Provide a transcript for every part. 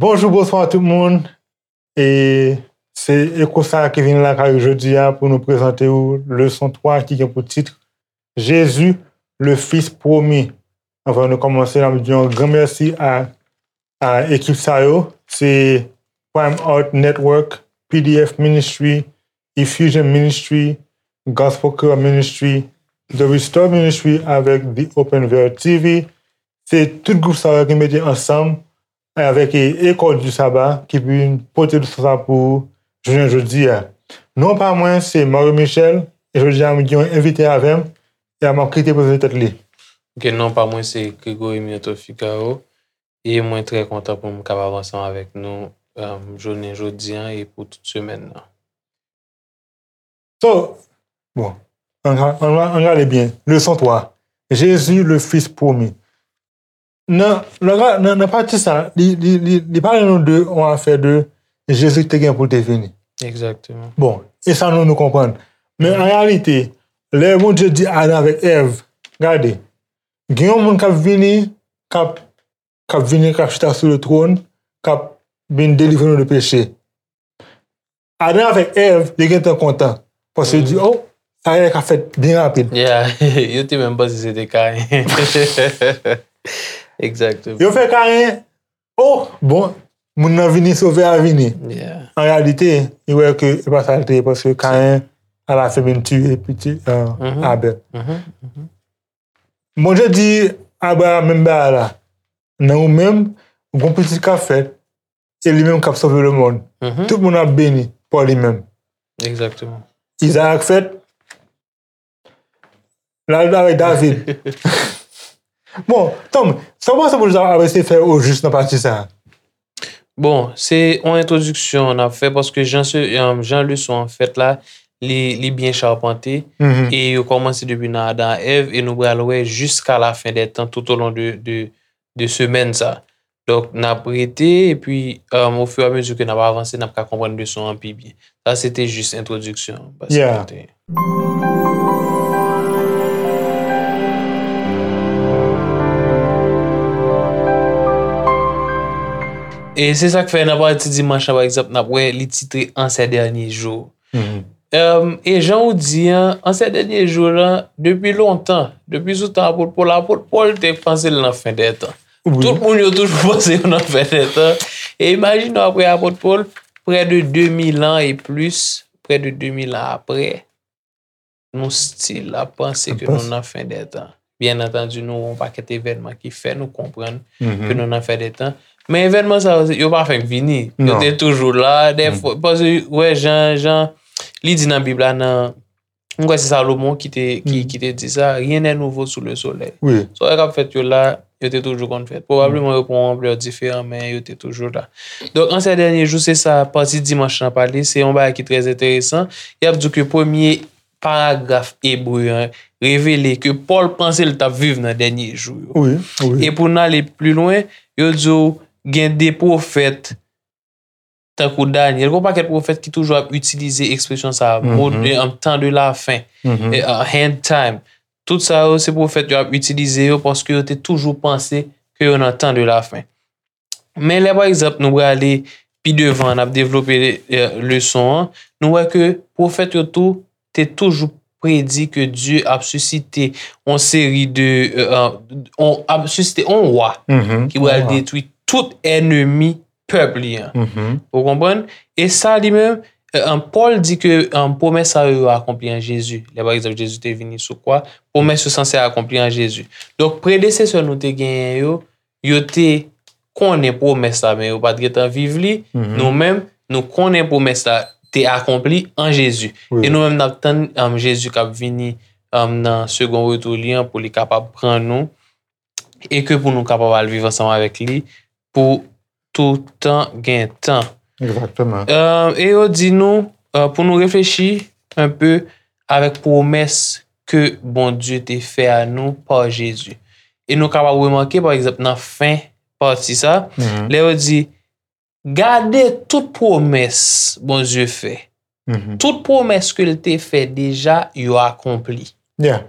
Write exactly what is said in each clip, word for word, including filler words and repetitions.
Bonjou, bonswa tout moun. E se Eko sa ki vin lakay ou jodi a pou nou prezante ou leson twa ki gen pou tit Jésus, le Fils promis. Anvan nou kòmanse, n ap di yon gran mèsi a, a ekip sa yo. Se Prime Art Network, P D F Ministry, Effusion Ministry, Gospel Creole Ministry, The Restore Ministry avèk The Open Veil T V. Se tout gwoup sa yo ki mete ansanm avèk e, Eko du Sabbat ki vin pote leson sa pou jounen jodi a. Non pa mwen, se Mario Michel, e jodi a, m gen yon envite avè m, e m ap kite prezante tèt li. Ok, non pa mwen, se Gregory Mioto Figaro, e mwen trè kontan pou m kapab ansanm avèk nou, um, jounen jodi a e pou tout semèn nan. So, bon, ann, ann, ann gade byen. Leson twa. Jésus, le Fils promis. Nan, nan, nan, nan pati sa, li, li, li, li pale nou de yon afè de Jezi te gen pou l te vini. Egzakteman. Bon, e sa nou, nou konprann. Men an reyalite, lè Bondye di Adan avèk Èv, gade, gen yon moun k ap vini, k ap, k ap vini, k ap chita sou le twòn, k ap vin delivre nou de peche. Adan avèk Èv, yo gentan kontan. Paske yo di, oh, sa genlè ka fèt byen rapid. Yeah, yo te menm panse se te Kayen. Egzakteman. Yo fè Kayen, oh, bon, moun nan vini, sovè a vini. Yeah. An reyalite, yo wè ke se pa sa l te ye, paske Kayen, alafen, vin tiye pitit, euh, Mhm. Abèl. Mhm, mhm. Bondye di Abraham menm bagay la, nan ou menm, gon pitit k ap fèt, e li menm k ap sove lemonn. Mhm. Tout moun ap beni pa li menm. Egzakteman. Izarak fèt, l al avèk David. Bon, Tom, sa w panse Bondye ap eseye fè ojis nan pati sa a? Bon, se yon entwodiksyon n ap fè paske jan, se, um, jan leson an fèt la, li, li byen chapante Mhm. e yo kòmanse depi nan Adan ak Èv e nou pral wè jiska lafen dè tan tout o lon de, de, de semèn sa. Donk, n ap rete epi, um, ofiramezu ke n ap avanse, n ap ka konprann leson an pi byen. Sa se te jis entwodiksyon an. Paske Yeah. te- E se sa k fè nan pati dimanch la, pa egzanp, n ap wè li titre En ces derniers jours. Mhm. Um, e jan ou di an, en ces derniers jours la, depi lontan, depi sou tan apot Pòl, apot Pòl te panse l nan fen dè tan. Wi. Tout moun yo toujou panse yo nan fen dè tan. E imajine w apre apot Pòl, prè de de mil an e plis, prè de de mil an apre, nou still ap panse ke nou nan fen dè tan. Byen antandi, nou wè yon pakèt evènman ki fè nou konprann ke nou nan fen dè tan. Men evènman sa yo, yo pa fenk vini. Yo Non. Te toujou la. Dèfwa, paske, wè, jan, jan li di nan Bib la, nan, m kwè se Salomon ki te, ki, ki te di sa, rien n'est nouveau sous le soleil. Wi. Sa w wè k ap fèt yo la, yo te toujou konn fèt. Pwobableman yo pran yon anplè diferan, men yo te toujou la. Donk, en ces derniers jours, se sa, pati dimanch lan pale, se yon bagay ki trè enteresan. Y ap di ke premye paragraf ebre an revele ke Pòl panse l t ap viv nan dènye jou yo. Wi, wi. E pou n ale pli lwen, yo di w gen de pwofèt tankou Danyèl, gen yon pakèt pwofèt ki toujou ap itilize ekspresyon sa a, mo de, an tan de la fen, Mhm. e, an end time. Tout sa yo, se pwofèt yo ap itilize yo paske yo te toujou panse ke yo nan tan de la fen. Men lè, pa egzanp, nou prale pi devan, n ap devlope, e, leson an, nou wè ke pwofèt yo tou te toujou predi ke Dye ap sisite yon seri de, e, e, on, ap sisite yon wa Mhm. ki pral Wa. Detwi tout ènmi pèp li an. Mhm. Ou konprann? E sa li menm, e, e, Pòl di ke, e, pwomès sa yo, yo akonpli an Jezi. Lè, pa egzanp, Jezi te vini sou kwa, pwomès yo sanse akonpli an Jezi. Donk, predesesè nou te genyen yo, yo te konnen pwomès la, men yo pa t gentan viv li. Mhm. Nou menm, nou konnen pwomès la te akonpli an Jezi. Wi. E nou menm, n ap tann, um, Jezi k ap vini, um, nan segon retou li an pou li kapab pran nou e ke pou nou kapab al viv ansanm avèk li pou tout tan gen tan. Egzakteman. Euh, e yo di nou, euh, pou nou reflechi un peu avèk pwomès ke Bondye te fè a nou pa Jezi. E nou kapab remake, pa egzanp, nan fen pati sa, Mhm. lè yo di, gade tout pwomès Bondye fè. Mhm. Tout pwomès ke l te fè deja, yo akonpli. Yeah.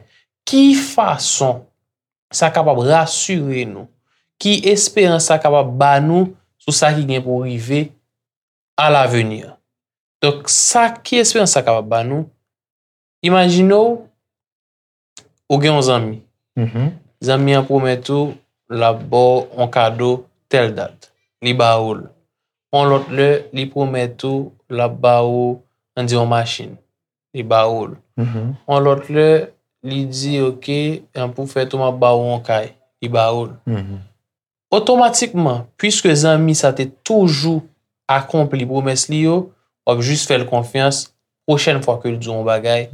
Ki fason sa kapab rasire nou? Ki esperans sa kapab ba nou sou sa ki gen pou rive à l'avenir. Donk, sa ki esperans sa kapab ba nou? Imajine w, ou gen yon zanmi. Zanmi an pwomèt ou l ap ba w yon kado tèl dat. Li ba ou l. Yon lòt lè, li pwomèt ou l ap ba ou, ann di, yon machin. Li ba ou l. Yon lòt lè, li di, oke, pou fèt ou, m ap ba ou yon kay. Li ba ou l. Otomatikman, piske zanmi sa te toujou akonpli pwomès li yo, w ap jis fè l konfyans. Pwochèn fwa ke l di w yon bagay,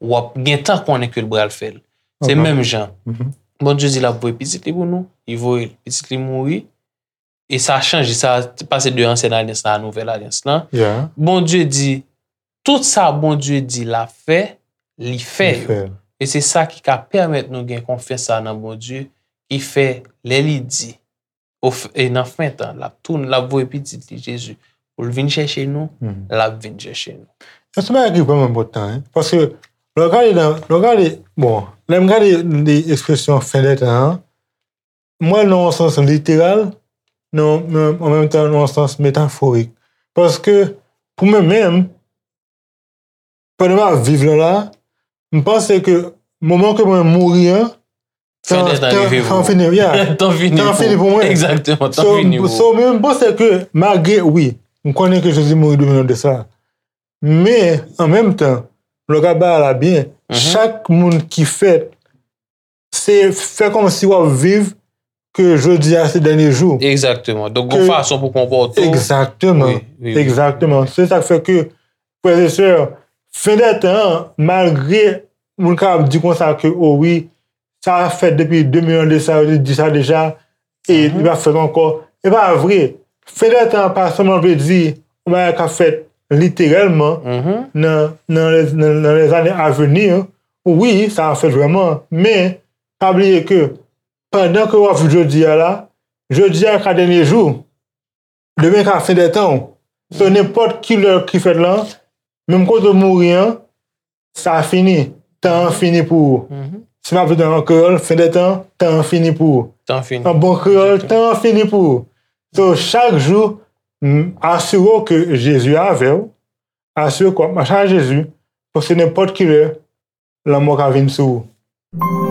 w ap gentan konnen ke l pral fè l. Se menm jan. Bondye di l ap voye pitit li pou nou, li voye l. Pitit li mouri, e sa chanje, sa pase de ansyen alyans la a nouvèl alyans lan. Bondye di, tout sa Bondye di l ap fè, li fè yo. E se sa ki ka pèmèt nou gen konfyans sa nan Bondye, ki fè lè li di, e nan fen tan, l ap tounen, l ap voye pitit li Jezi pou l vin chèche nou, l ap vin chèche nou. E se bagay ki vrèman enpòtan, wi. Paske lè w gade nan, lè w gade, bon, lè m gade li ekspresyon fen dè tan an, m wè l nan yon sans literal, nan, nan, an menm tan nan yon sans metaforik. Paske pou mwen menm, pandan m ap viv la la, m panse ke moman ke mwen mouri an, tan, tan fini, yeah, tan fini pou mwen. Egzakteman, tan fini pou ou. So, so, men m panse ke malgre, wi, m konnen ke Jezi mouri de mil an de sa. Men, an menm tan, lè w gade bagay la byen, chak moun ki fèt, se fè kòmsi w ap viv ke jodi a se dènye jou. Egzakteman. Donk, gon fason pou konpòte w. Egzakteman. Egzakteman. Se sa k fè ke, frè e sè, fen dè tan an, malgre moun kapab di konsa ke, o wi, sa fèt depi de mil an de sa, yo te di sa deja, e li p ap fèt ankò. E pa vre. Fen dè tan an pa sèlman vle di yon bagay k ap fèt literèlman nan, nan lè, nan, nan lèzane aveni. Wi, sa ap fèt vrèman, men pa bliye ke pandan ke w ap viv jodi a la, jodi a ka dènye jou, demen ka fen dè tan w. So, nenpòt ki lè ki fèt lan, menm kote w mouri an, sa fini. Tan an fini pou ou. Si m ap di an kreyòl, fen dè tan, tan an fini pou ou. Tan fini. An bon kreyòl, tan an fini pou ou. So, chak jou, m, asire w ke Jezi avè w, asire w ke w ap mache ak Jezi, paske nenpòt ki lè, lanmò ka vin sou ou.